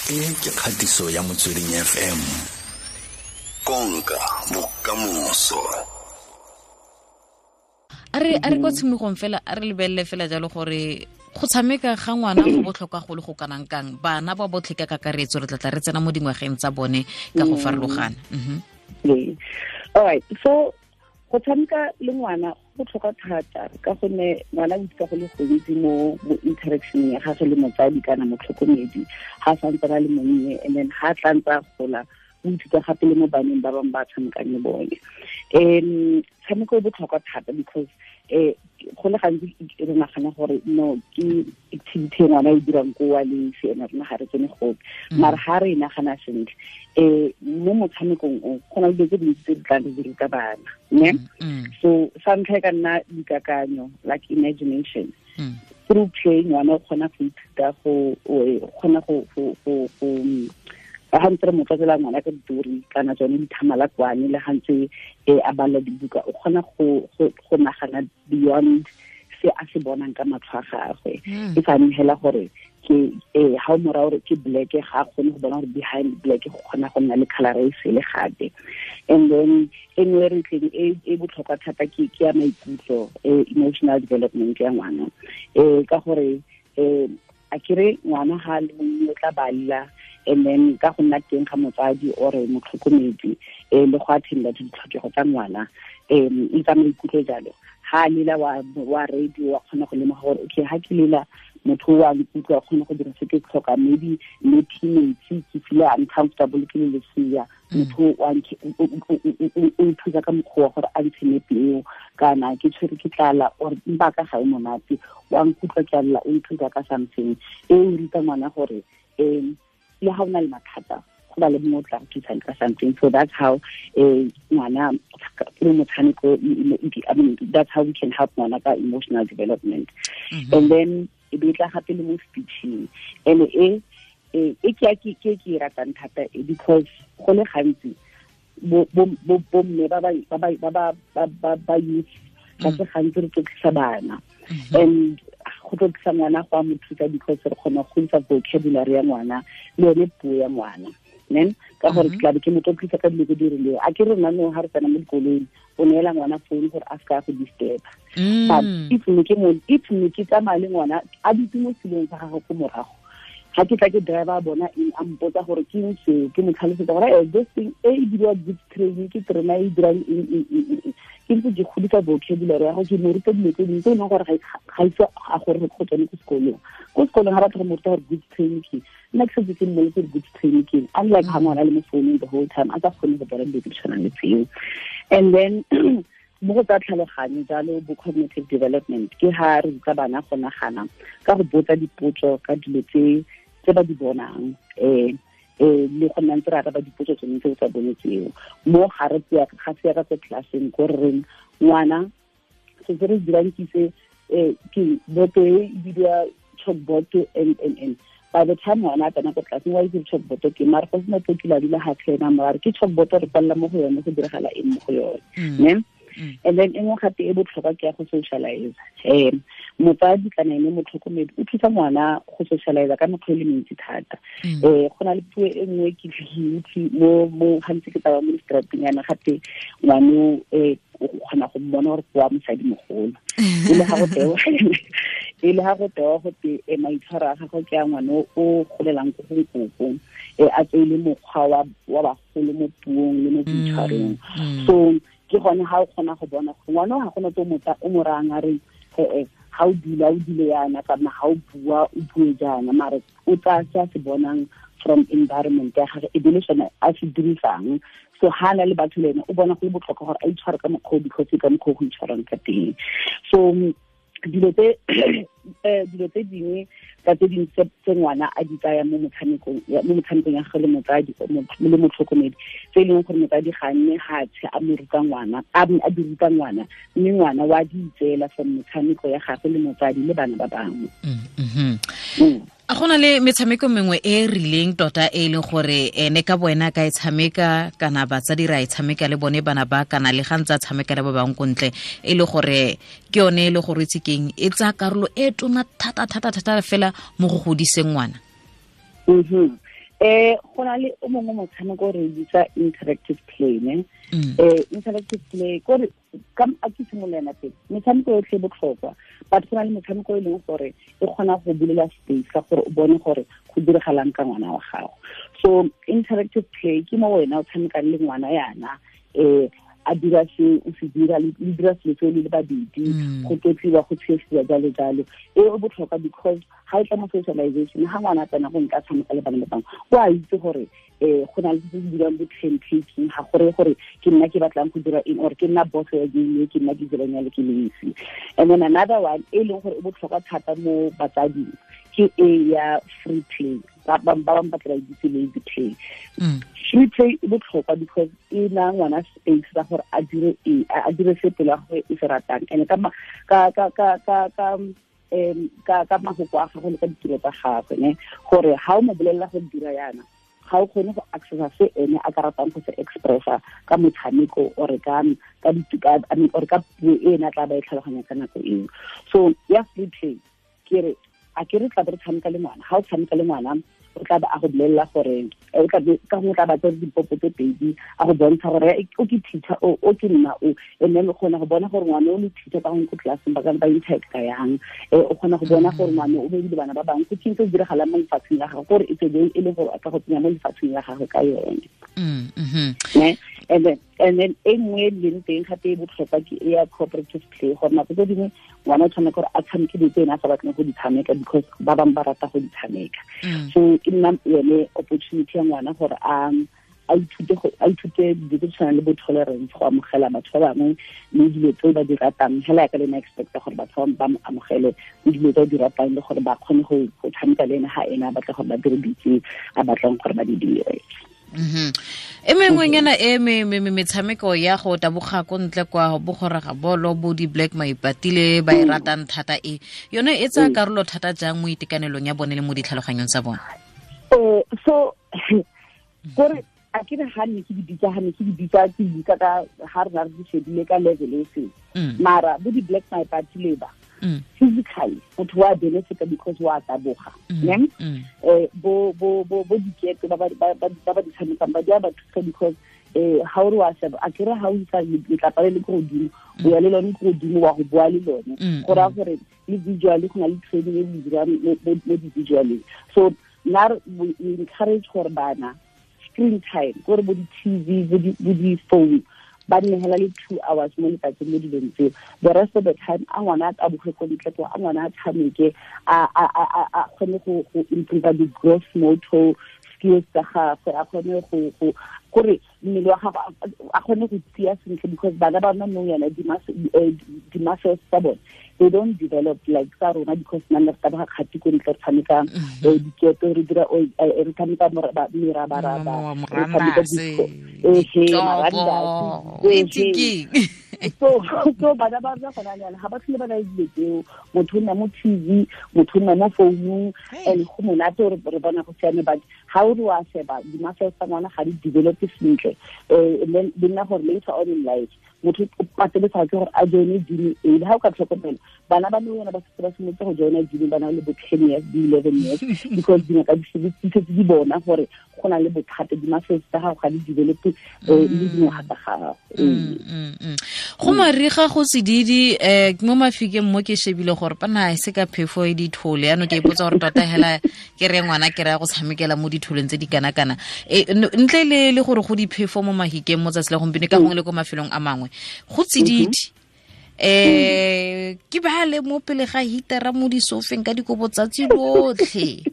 E ke kgatiso ya Motsweding FM. Konka bokamoso. A re kwa tshimologong fela, a re lebelele fela jalo gore go tshameka ga ngwana go botlhokwa go le go kanang kang bana ba botlhe ka kakaretso. Re tlatla re tsena mo dingwageng tsa bone ka go farologana. All right, so go tshameka le ngwana go botlhokwa thata ka gonne ngwana o ithuta go le gontsi mo interaction ya gagwe le motsadi kana motlhokomedi ga santse a le monnye, and then ga tla ntse a gola, o ithuta gape le mo baneng ba bangwe ba tshamekang le bone. Tshameko e botlhokwa thata because go le gantsi re nagana gore no, ke activity e ngwana e dirang ko wa le se ena, rona ga re tsene gope. Mara ga re e nagana sentle, mo motshamekong o go na le dilo tse dintsi tse di tlang di ruta bana, ne? So sa ntlha e ka nna dikakanyo, like imagination. Through play, ngwana o kgona go ithuta go kgona go ga ntse re mo tlotlela ngwana ka ditori kana tsone dithamalakwane, le ga ntse a bala dibuka, o kgona go nagana beyond se a se bonang ka matlho a gagwe. E sa hela gore ke ha o mora gore ke black, ga a kgone go bona gore behind black go kgona go nna le color e sele gape. And then e nngwe re tleng e botlhokwa thata ke ya maikutlo, emotional development ya ngwana, ka gore a kere ngwana ga le monnye o tla balla, and then ka go nna teng ga motsadi or motlhokomedi le go attenda to ditlhokego tsa ngwana e tsa maikutlo jalo, ha lela wa radio, wa kgona go lemoga gore okay, ha ke lela, motho wa nkutlwa, kgona go dira se ke tlhoka. Maybe le metsi, ke feel uncomfortable ke le lesea, motho o nthusa ka mokgwa wa gore a ntshe nepi eo, kana ke tshwere ke tlala or mpa ka ga e monate, wa nkutlwa ke a lla, o nthusa ka something. E o ruta ngwana gore le ha o na le mathata, go ba le mongwe o tla go thusang ka something. So that's how ngwana through motshameko, I mean, that's how we can help ngwana ka emotional development. And then e be tla gape le mo speeching, and e ke ratang thata because go le gantsi bo mme ba youth ka se gantsi re tlotlisa bana, and go tlotlisa ngwana go a mo thusa because re kgona go godisa vocabulary ya ngwana le yone puo ya ngwana, nen ka gore ke tlabe ke mo tlotlisa ka dilo tse di rileng. A ke re nna no, ga re tsena mo dikoloing, o neela ngwana phone gore a se ka go disturb, but if ne ke tsamaya le ngwana a dutse mo selong sa gagwe ko morago, ga ke tla ke driver bona eng, a mpotsa gore ke eng seo, ke mo tlhalosetsa gore this thing e e diriwa goods train, ke terena e dirang eng eng eng, ke ntse ke godisa vocabulary ya go, ke mo ruta dilo tse dingwe tse e leng gore ga ise a gore go tsone ko sekolong. Ko sekolong ga batla go mo ruta gore goods train ke, nna ke setse ke mmoletse gore goods train ke, unlike ga ngwana le mo founung the whole time a sa kgone go bona dilo tse di tshwanang le tseo. And then mo go tsa tlhaloganyo jalo, bo cognitive development, ke ha re ruta bana go nagana ka go botsa dipotso ka dilo tse ba di bonang, le go nna ntse re araba dipotso tsone tse tsa bone tseo. Mo ga re tseya ga se ya ka ko classeng ko re reng ngwana se se re dirang ke se, ke boto e bidiwa chalkboard, and by the time ngwana a tsena ko tlelaseng, wa itse chalkboard ke, mare go sena tlo kila dula ga tlhena mare ke chalkboard, re kwalela mo go yone, go diragala eng mo go yone, ne? And then e nngwe gape e botlhokwa ke ya go socialize. Motsadi kana ene motlhokomedi o thusa ngwana go socialize ka mekgwa e le mentsi thata. Go na le puo e nngwe ke utlwe mo gantsi ke tsamaya mo di-strateng yana, gape ngwano o kgona go mmona gore ke wa mosadi mogolo, e le ga go tewa go te maitshwaro a gagwe ke a ngwana o golelang ko go nkoko, a tseile mokgwa wa bagolo mo puong le mo boitshwarong. So ke gone ga o kgona go bona gore ngwana ga gona tse o mo rayang a re ee, ga o dula o dule yana, kana ga o bua o bue jaana, mare o tsaya se a se bonang from environment ya gagwe, e be le sone a se dirisang. So ha na le batho le ene, o bona go le botlhokwa gore a itshware ka mokgwa o, because ka mokgwa o go itshwarang ka teng. So dilo tse dingwe tsa tse dingwe tse ngwana a di tsaya mo motshamekong ya gagwe le motsadi le motlhokomedi, tse e leng gore motsadi ga nne ga tshe a mo ruta ngwana, a di ruta ngwana, mme ngwana wa di itseela from metshameko ya gagwe le motsadi le bana ba bangwe. A gona le metshameko mengwe e e rileng tota e leng gore ene ka boena ka e tshameka, kana batsadi ra e tshameka le bone bana ba, kana le ga ntse a tshameka le ba bangwe ko ntle, e le gore ke yone e le gore itse keng e tsaya karolo e tona thata thata thata fela mo go godiseng ngwana? Go na le o mongwe motshameko re bitsa interactive play ne. Interactive play kore ka a ke simolana pele metshameko yotlhe e botlhokwa, but go na le metshameko e leng gore e kgona go bulela space ka gore o bone gore go diragalang ka ngwana wa gago. So interactive play ke mo wena o tshamekang le ngwana yana, a dira se o se dira le dira selo se le babedi, go tlotliwa, go tshesiwa, jalo jalo. E o botlhokwa because ga e tla mo socialization, ga ngwana a tsena go nka tshameka le bana ba bangwe, o a itse gore go na le tse di dirang bo turn taking, ga gore gore ke nna ke batlang go dira eng or ke nna boss ya game, ke nna ke dirang ya le ke le esi. And then another one e leng gore e botlhokwa thata mo batsading ke e ya free play. Ba bangwe ba tla itse lazy play. Free play e botlhokwa because e na ngwana space sa gore a dire e a dire se pelo ya gagwe e se ratang, and ka ka ka ka ka ka ka ka mafoko a gagwe le ka ditiro tsa gagwe ne, gore ha o mo bolelela go dira yana, ga o kgone go accessa se ene a ka ratang go se expressa ka motshameko or ka ka I mean or ka puo e ene a tla ba e tlhaloganya ka nako eo. So ya free play ke re a ke re tla be re tshameka le ngwana, ha o tshameka le ngwana o tla ba a go bolelela gore o tla be ka gongwe tla ba tsere dipopo tse pedi a go bontsha gore o ke teacher o ke nna o, and then o kgona go bona gore ngwana o le teacher ka gongwe ko classeng ba ka ba interact-a yang, o kgona go bona gore ngwana o bebile bana ba bangwe, ke eng se se diragalang mo lefatsheng la gagwe, gore e tsebe e le gore a ka go tsenya mo lefatsheng la gagwe ka yone. Ne? And then e nngwe e leng teng gape e botlhokwa ke e ya cooperative play, gore nako tse dingwe ngwana o tshwanetse gore a tshameke dilo tse ene a sa batleng go di tshameka because ba bangwe ba rata go di tshameka. So e nna yone opportunity ya ngwana gore a ithute dilo tse tshwanang le bo tolerance, go amogela batho ba bangwe le dilo tse ba di ratang, hela ya ka le ena expecta gore batho ba mo amogele le dilo tse ba di ratang, le gore ba kgone go tshameka le ene ha ene a batla gore ba dire dilo tse a batlang gore ba di dire. E mengwenyana e metshameko ya go taboga ko ntle kwa bogoraga bolo bo di Black Maipatile ba e ratang thata e yone e tsaya karolo thata jang mo itekanelong ya bone le mo ditlhaloganyong tsa bone? So gore a ke re ha ne ke di bitsa ke bitsa ka ha re re di shebile ka level e seng, mara bo di Black Maipatile ba physically motho wa benefit because wa taboga, ne? Bo bo bo bo diketo ba ba ba di tshamekang ba di a ba thusa because ha o re wa sheba a ke re ha o isa letlapa le le ko godimo, o ya le lone ko godimo wa go boa le lone, go raya gore le visually go na le training e le dirang mo di-visualeng. So nna we encourage gore bana screen time gore bo di-TV bo di-phone ba nnegela le 2 hours mo letsatsing mo dilong tseo. The rest of the time a ngwana a taboge ko ntle ko, a ngwana a tshameke, a kgone go improve the gross motor skills tsa gagwe, a kgone go gore mmele wa gagwe a kgone go tia sentle, because bana ba rona nou yana di-muscles tsa bone they don't develop like tsa rona, because nna re taboga kgati ko ntle, re tshameka diketo, re dira re tshameka merabaraba, re tshameka disco, so bana ba rona gona jaana ga ba tlhole ba na le dilo tseo, motho o nna mo TV, motho o nna mo founung, and go monate gore re bona go siame, but ga o re wa sheba di-muscles tsa ngwana ga di develope sentle, and then di nna gore later on in life motho o pateletsa ke gore a joine gym e. Ha o ka tlhokomela bana ba le yona ba setse ba simolotse go joina gym ba na le bo 10 years, di 11 years, because dingaka di setse di bona gore go na le bothata, di-muscles tsa gago ga di develope le dingwaga tsa gago. Go mariga go sedidi mo mafikeng mo ke shebile gore pana e se ka phefo e dithole, yaanong ke ipotsa gore tota hela ke re ngwana ke raya go tshamekela mo ditholeng tse di kana-kana, ntle le gore go diphefo mo mahikeng mo tsatsi la gompieno ka gongwe le ko mafelong a mangwe go tsididi, ke ba le mo pele ga hitara mo disofeng ka dikobo tsatsi lotlhe,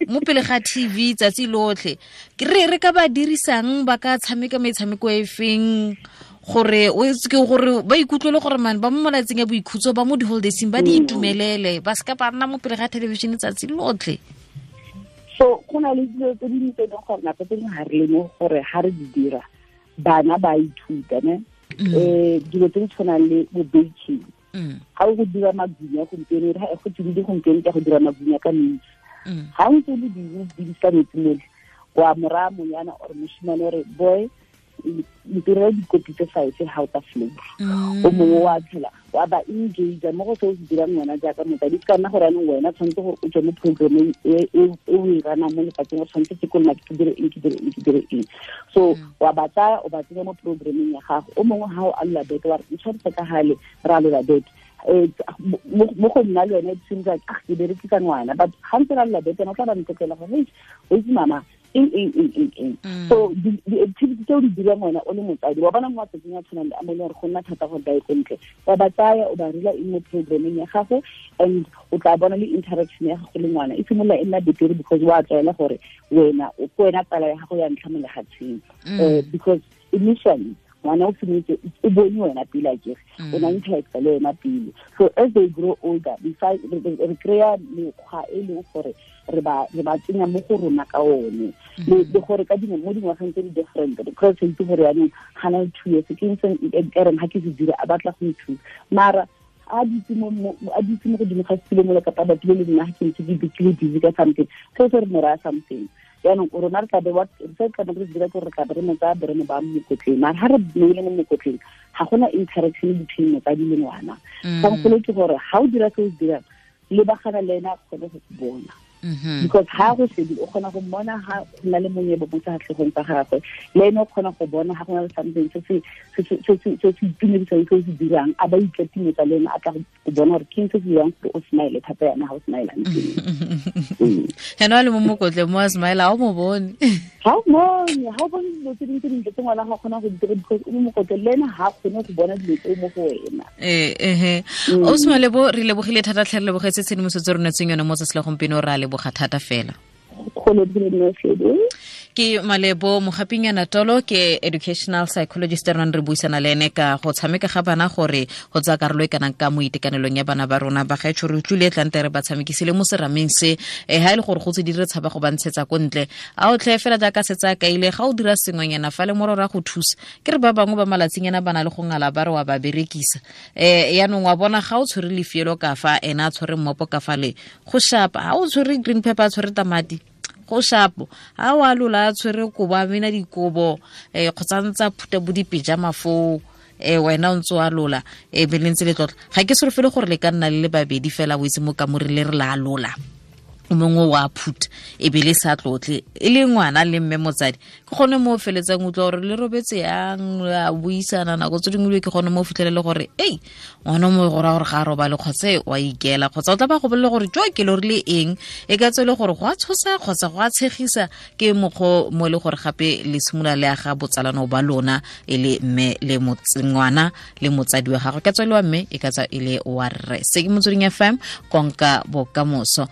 mo pele ga TV tsatsi lotlhe, ke re ka ba dirisang ba ka tshameka metshameko e feng gore o itse ke gore ba ikutlwele gore man ba mo malatsing a boikhutso ba mo di-holidayseng ba di itumelele, ba seka ba nna mo pele ga television tsatsi lotlhe. So go na le dilo tse dingwe tse e leng gore nako tse dingwe ga re lemoge gore ga re di dira bana ba ithuta ne. Dilo tse di tshwanang le bo baking, ga o go dira magunya gompieno, go tsididi gompieno ka go dira magunya ka metsi, ga o ntse o le busy o bidisa metsi mole, wa moraya monyana or moshimane ore boy ntirela dikopi tse 5 ha o ta flow o mongwe wa tshela wa ba engage mo go se o se dirang wena jaaka motsadi. Se ka nna gore anong wena tshwanetse gore o tswe mo programmeng e o e ranang mo lefatsheng, o tshwanetse ke kolona ke dire eng, ke dire eng, ke dire eng. So wa ba tsaya o ba tsenya mo programmeng ya gago. O mongwe ha o alola beke wa re ntshwanetse ka gale re alola beke, mo go nna le yone it seems like ah ke berekisa ngwana, but ga ntse re alola beke o tla ba ntlotlela gore hey o itse mama eng eng eng eng eng. So di-activity tse o di dirang wena o le motsadi wa bona mo matsatsing a tshwanang le a mo e leng gore go nna thata gore ba ye ko ntle, wa ba tsaya o ba rela eng mo programmeng ya gago, and o tla bona le interaction ya gago le ngwana e simolola e nna betere because wa tlwaela gore wena o ke wena tsala ya gago ya ntlha mo lefatsheng. Because initially ngwana o simolotse o bone wena pele a kere o na interacta le wena pele. So as they grow older re kry-a mekgwa e leng gore re ba tsenya mo go rona ka one, le gore ka dingwe mo dingwageng tse di different, because itse gore yaanong ga na le 2 years ke ntse e reng ga ke se dira a batla go nthusa, mara a ditse mo godimo ga setilo mola kapa batho le nna ga ke ntse ke le busy ka something seo se re mo raya something. Jaanong rona re tlabe se tlabe re se dira ke gore re tlabe re mo tsaya be re mo baya mo mokotleng, mara ga re beile mo mokotleng ga gona interaction between motsadi le ngwana. Kgangkgolo ke gore ga o dira se o se dirang lebagana le ena a kgone go bona, because ha go shebile o kgona go mmona ha go na le monyebo mo sefatlhegong sa gagwe, le ene o kgona go bona ha go na le something se se itumedisang se o se dirang, a ba ikatimetsa le ene a tla go bona gore ke eng se se dirang gore o smile thata yana ha o smilang teng. Ene a le mo mokotleng mo a smile ha o mo bone, ha o bone, ha o bone dilo tse dingwe tse dintle tse ngwana ga kgona go di dira because o mo mokotleng le ene ha kgone go bona dilo tseo mo go wena. O Malebo, re lebogile thata tlhe, re lebogetse tshedimosetso re netseng yone mo tsatsi la gompieno, re a leboga thata fela. Ke Malebo Mogapinyana Tolo, ke educational psychologist re nang re buisana le ene ka go tshameka ga bana gore go tsaya karolo e kanang ka mo itekanelong ya bana ba rona. Ba gaetsho re utlwile tlante re ba tshamekisile mo serameng se, ha e le gore go tse di re tshaba go ba ntshetsa ko ntle, a o tlhe fela jaaka setse a kaile ga o dira sengwenyana fa le mororo a go thusa. Ke re ba bangwe ba malatsinyana ba na le go ngala ba re wa ba berekisa, yaanong wa bona ga o tshwere lefielo ka fa ena a tshwere mmopo ka fa le go shapa, ha o tshwere green pepper a tshwere tamati go shapo, ha o alola a tshwere kobo a mena dikobo, kgotsa ntsa phuta bo dipejama foo, wena o ntse o alola, be le ntse le tlotla. Ga ke solofele gore le ka nna le le babedi fela o itse mo kamoreng le re la alola, o mongwe wa phuta e be le sa tlotle e le ngwana le mme motsadi, ke gone mo o feletsang utlwa gore le robetse yang, a buisana nako tse dingwe, ke gone mo o fitlhelele gore ei ngwana mo go raya gore ga a robale kgotsa wa ikela, kgotsa o tla ba go bolele gore jo ke lorile eng, e ka tswe le gore go a tshosa kgotsa go a tshegisa. Ke mokgwa mo e le gore gape le simolola le aga botsalano ba lona e le mme le ngwana le motsadi wa gagwe, ka tswe le wa mme e ka tswa e le wa rre. Se ke Motsweding FM, konka bokamoso.